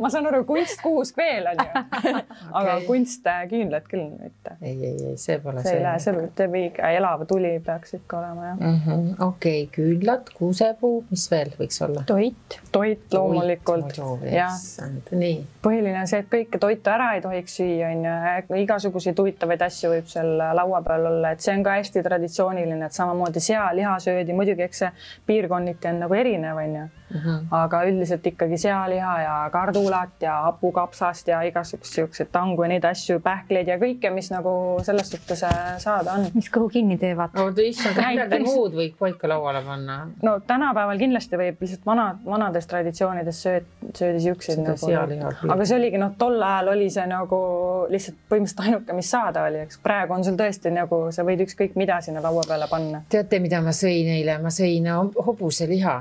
Ma saan aru, kunstkuusk veel on ju. Aga kunstküünlad küll mitte. Ei, see pole see. See teeb elava tuli peaks ikka olema. Okei, küünlad, kuusepuu, mis veel võiks olla? Toit loomulikult. Nii. Põhiline on see, et kõike toitu ära ei tohiks süüa. Igasuguseid huvitavaid asju võib seal laua peal olla. Et see on ka hästi traditsiooniline, et samamoodi sea, liha söödi. Muidugi, eks see piirkonniti on nagu erinev, on ju. Aga üldiselt ikkagi sealiha ja kardulat ja hapukapsast ja igasugused tangu ja neid asju, pähkleid ja kõike, mis nagu selles suhtes saada on. Mis kõhu kinni teevad? Midagi muud võib paika lauale panna. No tänapäeval kindlasti võib lihtsalt vanades traditsioonides söödi siukseid nagu. Aga see oligi, tol ajal oli see nagu lihtsalt põhimõtteliselt ainuke, mis saada oli. Praegu on sul tõesti nagu, sa võid ükskõik mida sinna laua peale panna. Teate, mida ma sõin eile? Ma sõin hobuseliha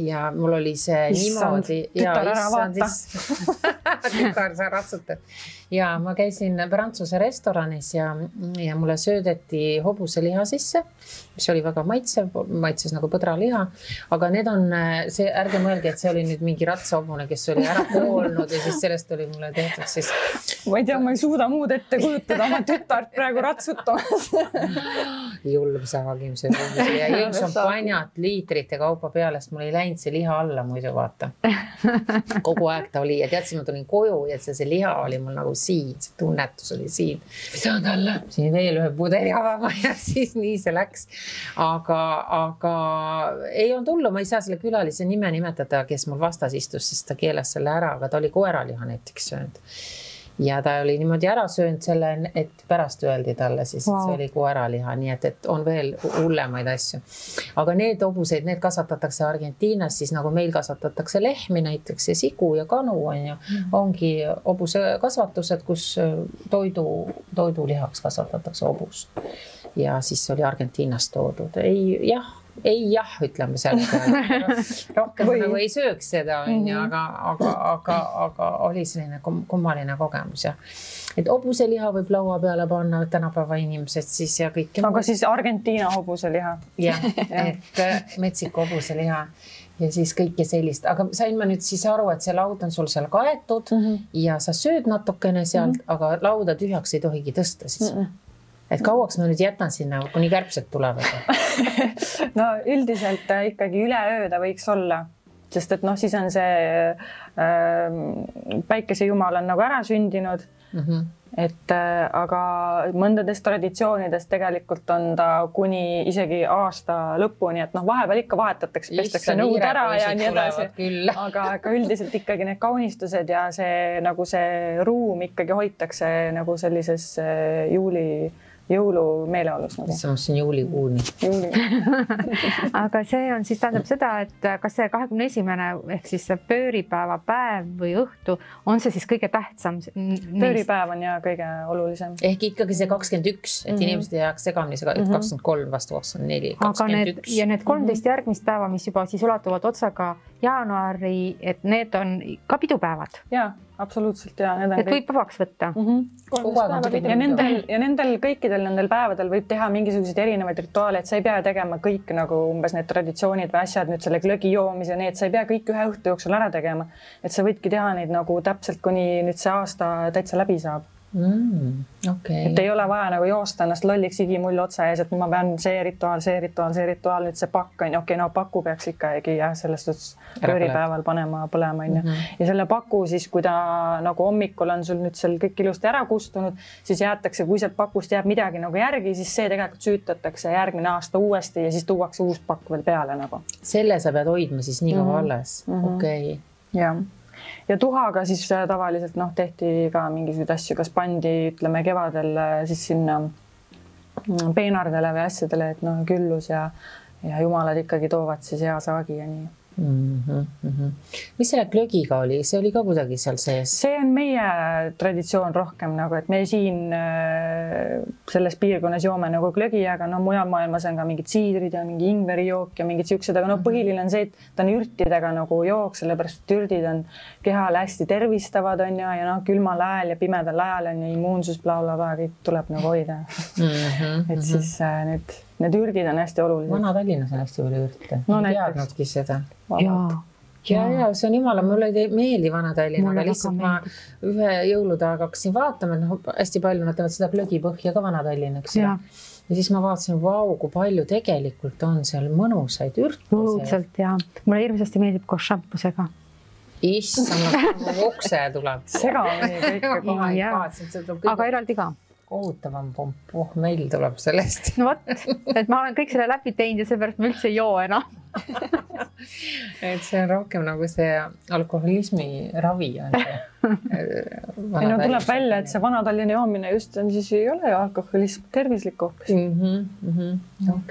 ja mul oli see niimoodi. Tütar ära vaata. Tütar, sa ratsutad. Ja ma käisin Prantsuse restoranis ja mulle söödeti hobuseliha sisse, mis oli väga maitses nagu põdraliha. Aga need on see, ärge mõelge, et see oli nüüd mingi ratsahobune, kes oli ära koolnud ja siis sellest oli mulle tehtud siis. Ma ei tea, ma ei suuda muud ette kujutada oma tütart praegu ratsutamas. Julm saagim see hobuseliha ja jõin šampanjat liitrite kaupa peale, sest mul ei läinud see liha alla muidu vaata. Kogu aeg ta oli ja teadsin, ma tulin koju ja see liha oli mul nagu siin, see tunnetus oli siin. Saan talle siin veel ühe pudeli avama ja siis nii see läks. Aga ei olnud hullu, ma ei saa selle külalise nime nimetada, kes mul vastas istus, sest ta keelas selle ära, aga ta oli koeraliha näiteks söönud. Ja ta oli niimoodi ära söönud selle, et pärast öeldi talle siis, et see oli koeraliha, nii et on veel hullemaid asju. Aga need hobuseid, need kasvatatakse Argentiinas, siis nagu meil kasvatatakse lehmi näiteks ja sigu ja kanu on ju. Ongi hobuse kasvatused, kus toidulihaks kasvatatakse hobust. Ja siis oli Argentiinast toodud. Ei jah, ütleme selle peale. Rohkem nagu ei sööks seda, aga oli selline kummaline kogemus. Et hobuseliha võib laua peale panna tänapäeva inimesed siis ja kõik. Aga siis Argentiina hobuseliha. Jah, et Meksiko hobuseliha ja siis kõike sellist. Aga sain ma nüüd siis aru, et see laud on sul seal kaetud ja sa sööd natukene sealt, aga lauda tühjaks ei tohigi tõsta siis. Et kauaks ma nüüd jätan sinna, kuni kärbsed tulevad? No üldiselt ikkagi üle ööda võiks olla, sest et siis on see päikesejumal on nagu ära sündinud. Et aga mõndades traditsioonides tegelikult on ta kuni isegi aasta lõpuni, et vahepeal ikka vahetatakse, pestakse nõud ära ja nii edasi. Aga üldiselt ikkagi need kaunistused ja see nagu see ruum ikkagi hoitakse nagu sellises jõulu meeleolus. See on siin juulikuuni. Aga see on siis tähendab seda, et kas see 21. ehk siis see pööripäeva päev või õhtu, on see siis kõige tähtsam? Pööripäev on ja kõige olulisem. Ehk ikkagi see 21, et inimesed ei jääks segamini, 23 vastu 24, 21. Ja need 13 järgmist päeva, mis juba siis ulatuvad otsaga jaanuari, et need on ka pidupäevad. Jaa, absoluutselt ja need on et võib vabaks võtta. Ja nendel kõikidel nendel päevadel võib teha mingisuguseid erinevaid rituaale, et sa ei pea tegema kõik nagu umbes need traditsioonid või asjad nüüd selle glögi joomise, need sa ei pea kõik ühe õhtu jooksul ära tegema. Et sa võidki teha neid nagu täpselt, kuni nüüd see aasta täitsa läbi saab. Okay. Et ei ole vaja nagu joosta ennast lolliks igimull otsa ees, et ma pean see rituaal, nüüd see pakk on. Okei, no paku peaks ikkagi selles suhtes pööripäeval panema põlema. Ja selle paku siis, kui ta nagu hommikul on sul nüüd seal kõik ilusti ära kustunud, siis jäetakse, kui sealt pakust jääb midagi nagu järgi, siis see tegelikult süütatakse järgmine aasta uuesti ja siis tuuakse uus pakk veel peale nagu. Selle sa pead hoidma siis nii kaua alles. Okei. Jah. Ja tuhaga siis tavaliselt tehti ka mingisuguseid asju, kas pandi, ütleme kevadel siis sinna peenardele või asjadele, et küllus ja jumalad ikkagi toovad siis hea saagi ja nii. Mis selle glögiga oli? See oli ka kuidagi seal sees? See on meie traditsioon rohkem nagu, et me siin selles piirkonnas joome nagu glögi, aga mujal maailmas on ka mingid siidrid ja mingi ingverijook ja mingid siuksed, aga põhiline on see, et ta on ürtidega nagu jook, sellepärast et ürdid on kehale hästi tervistavad on ja külmal ajal ja pimedal ajal on ja immuunsus blablabla, kõik tuleb nagu hoida. Et siis need ürdid on hästi olulised. Vana-Tallinnas on hästi palju ürte. Ei teadnudki seda. Ja, see on jumala, mulle ei meeldi Vana-Tallinn, aga lihtsalt ma ühe jõuludaga hakkasin vaatama, et hästi palju nad teevad seda glögipõhja ka Vana-Tallinnaks. Ja siis ma vaatasin, kui palju tegelikult on seal mõnusaid ürte. Õudselt ja mulle hirmsasti meeldib koos šampusega. Issand, okse tuleb. Segamini kõik. Aga eraldi ka. Kohutavam pomp, meil tuleb sellest. No võt, et ma olen kõik selle läbi teinud ja seepärast ma üldse ei joo enam. Et see on rohkem nagu see alkoholismi ravi on see. Tuleb välja, et see Vana-Tallinna joomine just on siis ei ole alkoholism, tervislik hoopis.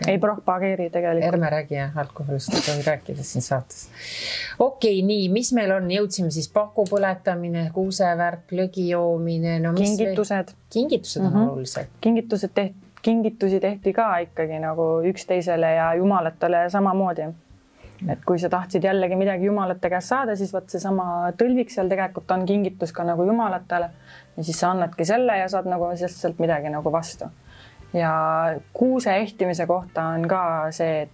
Ei propageeri tegelikult. Ärme räägi alkoholist, ei tohi rääkida siin saates. Okei, nii, mis meil on? Jõudsime siis paku põletamine, kuusevärk, lögi joomine. Kingitused. Kingitused on olulised. Kingitusi tehti ka ikkagi nagu üksteisele ja jumalatele samamoodi. Et kui sa tahtsid jällegi midagi jumalate käest saada, siis võt see sama tõlvik seal tegelikult on kingitus ka nagu jumalatele. Ja siis sa annadki selle ja saad nagu sealt midagi nagu vastu. Ja kuuse ehtimise kohta on ka see,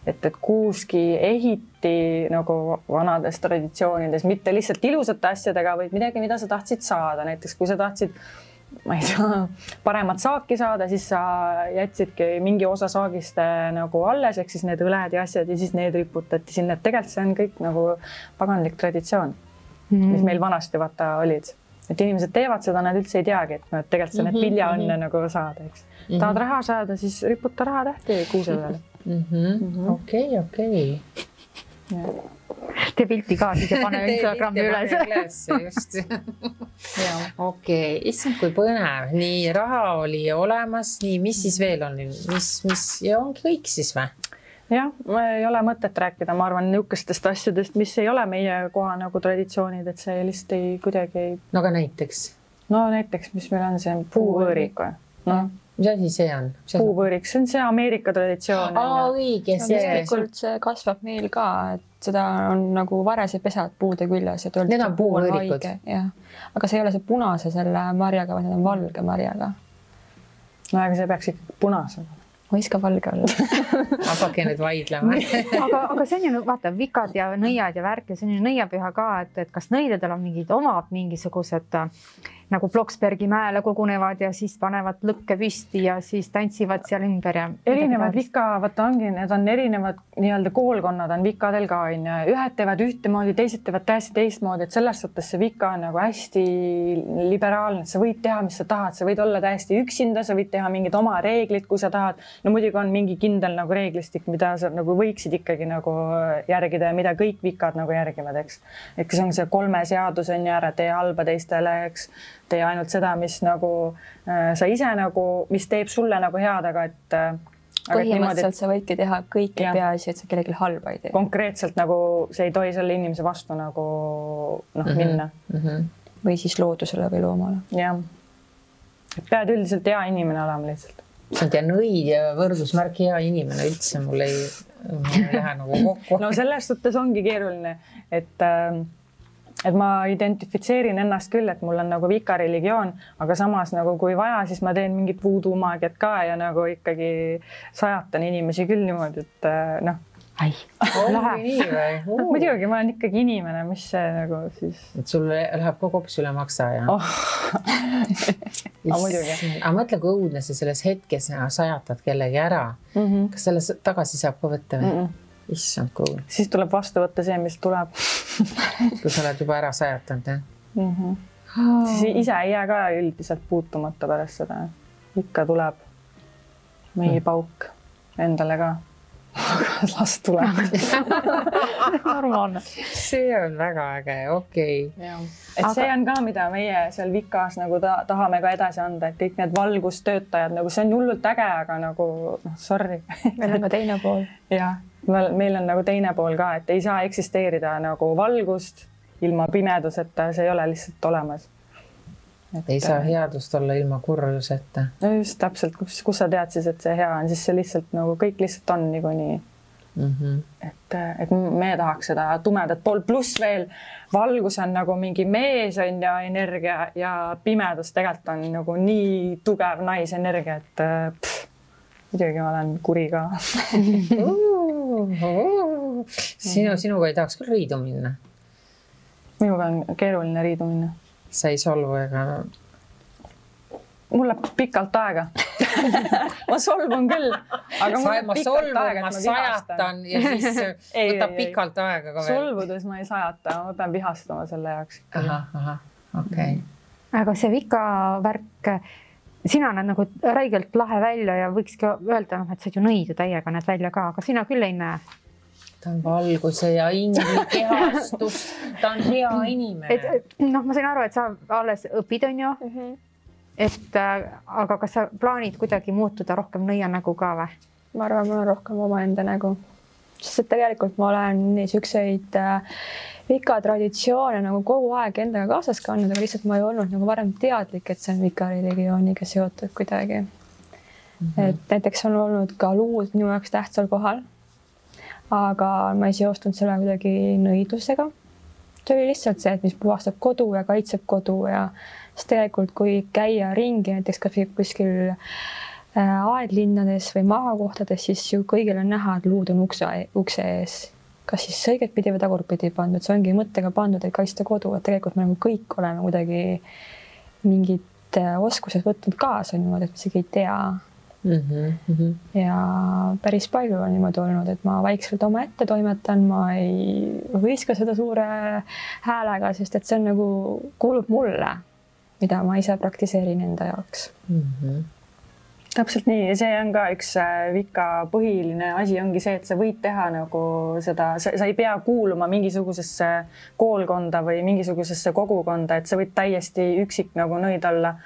et kuuski ehiti nagu vanades traditsioonides, mitte lihtsalt ilusate asjadega, vaid midagi, mida sa tahtsid saada. Näiteks kui sa tahtsid ma ei tea, paremat saaki saada, siis sa jätsidki mingi osa saagist nagu alles, ehk siis need õled ja asjad ja siis need riputati sinna. Et tegelikult see on kõik nagu paganlik traditsioon, mis meil vanasti vaata olid. Et inimesed teevad seda, nad üldse ei teagi, et tegelikult see need viljaõnne nagu saada, eks. Tahad raha saada, siis riputa raha tähti kuuse peale. Okei. Tee pilti ka siis ja pane Instagrami üles. Just. Okei, issand kui põnev. Nii, raha oli olemas, nii, mis siis veel on? Ja ongi kõik siis või? Jah, ei ole mõtet rääkida, ma arvan, niukestest asjadest, mis ei ole meie koha nagu traditsioonid, et see lihtsalt ei kuidagi ei... No aga näiteks? No näiteks, mis meil on see puuvõõrik või? Mis asi see on? Puuvõõrik, see on see Ameerika traditsioon. Õige, tegelikult see kasvab meil ka, et seda on nagu varese pesad puude küljes. Need on puuvõõrikud? Aga see ei ole see punase selle marjaga, vaid need on valge marjaga. No aga see peaks ikka punase. Võiska valge olla. Hakake nüüd vaidlema. aga see on ju, vaata, vikad ja nõiad ja värk ja see on ju nõiapüha ka, et kas nõidadel on omad mingisugused nagu Bloksbergi mäele kogunevad ja siis panevad lõkke püsti ja siis tantsivad seal ümber ja... Erinevad vika, vaata ongi, need on erinevad nii-öelda koolkonnad on vikadel ka, ühed teevad ühtemoodi, teised teevad täiesti teistmoodi, et selles suhtes see vika on nagu hästi liberaalne, et sa võid teha, mis sa tahad, sa võid olla täiesti üksinda, sa võid teha mingid oma reeglid, kui sa tahad. No muidugi on mingi kindel nagu reeglistik, mida sa nagu võiksid ikkagi nagu järgida ja mida kõik vikad nagu järgivad, eks. Et kas on see 3 seadus on ja ära tee halba teistele, eks. Tee ainult seda, mis nagu sa ise nagu, mis teeb sulle nagu head, aga et... Põhimõtteliselt sa võidki teha kõiki peaasi, et sa kellelegi halba ei tee. Konkreetselt nagu see ei tohi selle inimese vastu nagu minna. Või siis loodusele või loomale. Jah. Pead üldiselt hea inimene olema lihtsalt. See on nõid ja võrdusmärk hea inimene üldse mul ei lähe nagu kokku. No selles suhtes ongi keeruline, et et ma identifitseerin ennast küll, et mul on nagu vikariligioon, aga samas nagu kui vaja, siis ma teen mingit voodoo maagiat ka ja nagu ikkagi sajatan inimesi küll niimoodi, et noh. Ai, lahe. Nii või? Muidugi, ma olen ikkagi inimene, mis see nagu siis... Et sul läheb kogu hoopis üle maksa, ja? Aga mõtle, kui õudne see selles hetkes sajatad kellegi ära. Kas selle tagasi saab ka võtta või? Issand, kui õudne. Siis tuleb vastu võtta see, mis tuleb. Kui sa oled juba ära sajatanud, jah? Siis ise ei jää ka üldiselt puutumata pärast seda. Ikka tuleb meie pauk endale ka. Las tuleb. Normaalne. See on väga äge, okei. Et see on ka, mida meie seal Vikas nagu tahame ka edasi anda, et kõik need valgustöötajad, nagu see on hullult äge, aga nagu, sorry. Meil on ka teine pool. Jah, meil on nagu teine pool ka, et ei saa eksisteerida nagu valgust ilma pimeduseta, see ei ole lihtsalt olemas. Ei saa headust olla ilma kurjuseta. No just täpselt, kus sa tead siis, et see hea on, siis see lihtsalt nagu kõik lihtsalt on nii. Et me tahaks seda tumedat pool, pluss veel valgus on nagu mingi mees on ja energia ja pimedus tegelikult on nagu nii tugev naisenergia, et muidugi ma olen kuri ka. Sinuga ei tahaks küll riidu minna? Minuga on keeruline riidu minna. Sa ei solvu ega... Mul läheb pikalt aega. Ma solvun küll, aga mul läheb pikalt aega, ma sajatan ja siis võtab pikalt aega ka veel. Solvudes ma ei sajata, ma pean vihastama selle jaoks. Okei. Aga see Vika värk, sina näed nagu räigelt lahe välja ja võikski öelda, et sa ju nõidu täiega näed välja ka, aga sina küll ei näe. Ta on valguse ja ingli kehastus, ta on hea inimene. Ma sain aru, et sa alles õpid, on ju? Aga kas sa plaanid kuidagi muutuda rohkem nõianägu ka või? Ma arvan, mul on rohkem oma enda nägu. Sest et tegelikult ma olen niisuguseid Vika traditsioone nagu kogu aeg endaga kaasas kandnud, aga lihtsalt ma ei olnud nagu varem teadlik, et see on Vika religiooniga seotud kuidagi. Et näiteks on olnud ka luud minu jaoks tähtsal kohal. Aga ma ei seostunud selle kuidagi nõidlusega. See oli lihtsalt see, et mis puhastab kodu ja kaitseb kodu ja sest tegelikult kui käia ringi näiteks kuskil aedlinnades või maakohtades, siis ju kõigil on näha, et luud on ukse ees. Kas siis õiget pidi või tagurpidi pandud, see ongi mõttega pandud, et kaitsta kodu, et tegelikult me nagu kõik oleme kuidagi mingid oskused võtnud kaasa niimoodi, et me isegi ei tea. Ja päris palju on niimoodi olnud, et ma vaikselt oma ette toimetan, ma ei võiska seda suure häälega, sest et see on nagu kuulub mulle, mida ma ise praktiseerin enda jaoks. Täpselt nii ja see on ka üks Vika põhiline asi ongi see, et sa võid teha nagu seda, sa ei pea kuuluma mingisugusesse koolkonda või mingisugusesse kogukonda, et sa võid täiesti üksik nagu nõid olla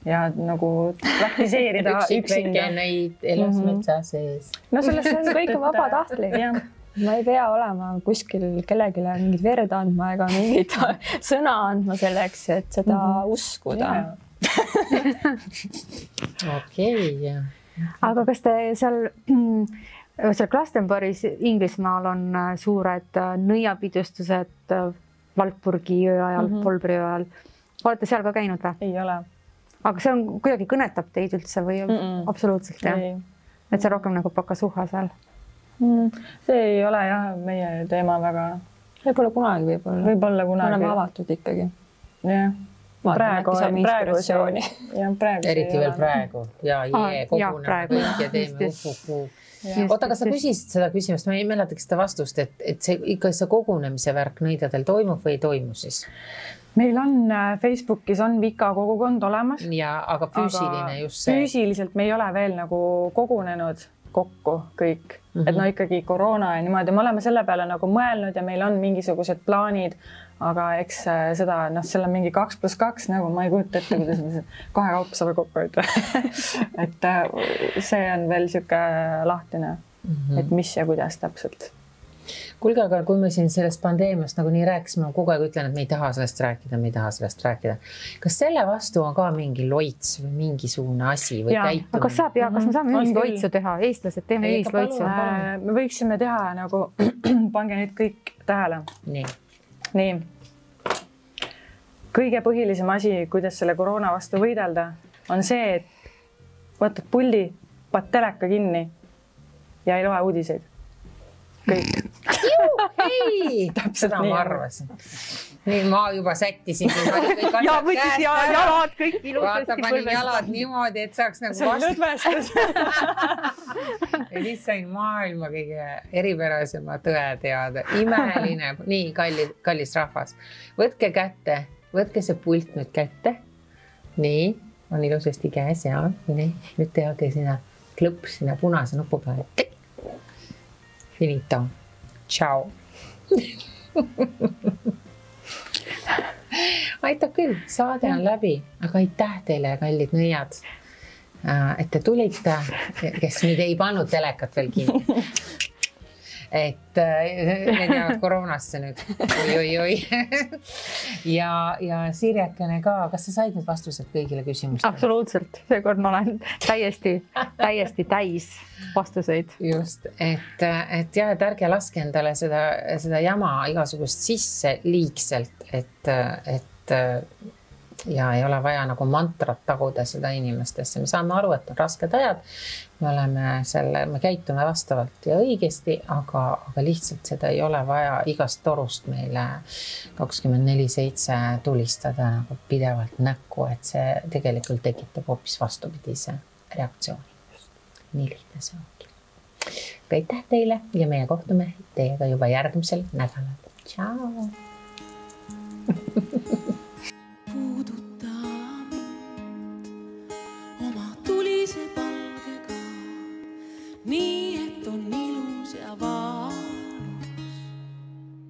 ja nagu praktiseerida üksinda. Neid elas metsa sees. No sellest on kõik vabatahtlik. Ma ei pea olema kuskil kellelegi mingit verd andma ega mingit sõna andma selleks, et seda uskuda. Okei. Aga kas te seal Glastonbury's Inglismaal on suured nõiapidustused Valpurgi öö ajal, Polbri öö ajal? Olete seal ka käinud või? Ei ole. Aga see on kuidagi kõnetab teid üldse või absoluutselt jah? Et see rohkem nagu pakasuha seal? See ei ole jah meie teema väga. Võib-olla kunagi, võib-olla kunagi. Me oleme avatud ikkagi. Jah. Praegu inspiratsiooni. Eriti veel praegu. Ja koguneme ja teeme uhuhu. Oota, aga sa küsisid seda küsimust, ma ei mäletaks seda vastust, et see ikka see kogunemise värk nõidadel toimub või ei toimu siis? Meil on Facebookis on Vika kogukond olemas. Ja, aga füüsiline just see. Füüsiliselt me ei ole veel nagu kogunenud kokku kõik. Et no ikkagi koroona ja niimoodi. Me oleme selle peale nagu mõelnud ja meil on mingisugused plaanid, aga eks seda, seal on mingi 2+2 nagu ma ei kujuta ette, kuidas me kahe kaupa saame kokku hoida. Et see on veel siuke lahtine, et mis ja kuidas täpselt. Kuulge, aga kui me siin sellest pandeemiast nagu nii rääkisime, ma kogu aeg ütlen, et me ei taha sellest rääkida. Kas selle vastu on ka mingi loits või mingisugune asi või käitumine? Kas me saame ühisloitsu teha? Eestlased teeme ühisloitsu. Me võiksime teha nagu, pange nüüd kõik tähele. Nii. kõige põhilisem asi, kuidas selle koroona vastu võidelda, on see, et võtad puldi, paned teleka kinni ja ei loe uudiseid. Kõik. Hei, seda ma arvasin. Nii ma juba sättisin. Ja võttis jalad kõik ilusasti. Vaata, panin jalad niimoodi, et saaks nagu see on lõdvestus. Ja siis sain maailma kõige eripärasema tõe teada. Imeline. Nii, kallis rahvas. Võtke kätte. Võtke see pult nüüd kätte. Nii, on ilusasti käes ja nii. Nüüd tehake sinna klõps sinna punase nupu peale. Finito. Ciao. Aitab küll, saade on läbi, aga aitäh teile, kallid nõiad, et te tulite, kes nüüd ei pannud telekat veel kinni. Et need jäävad koroonasse nüüd. Oi. Ja Sirjakene ka, kas sa said need vastused kõigile küsimustele? Absoluutselt, seekord ma olen täiesti täis vastuseid. Just, et jah, et ärge laske endale seda jama igasugust sisse liigselt, et ja ei ole vaja nagu mantrat taguda seda inimestesse. Me saame aru, et on rasked ajad. Me käitume vastavalt ja õigesti, aga lihtsalt seda ei ole vaja igast torust meile 24/7 tulistada nagu pidevalt näkku, et see tegelikult tekitab hoopis vastupidise reaktsiooni. Nii lihtne see ongi. Aitäh teile ja meie kohtume teiega juba järgmisel nädalal. Ciao!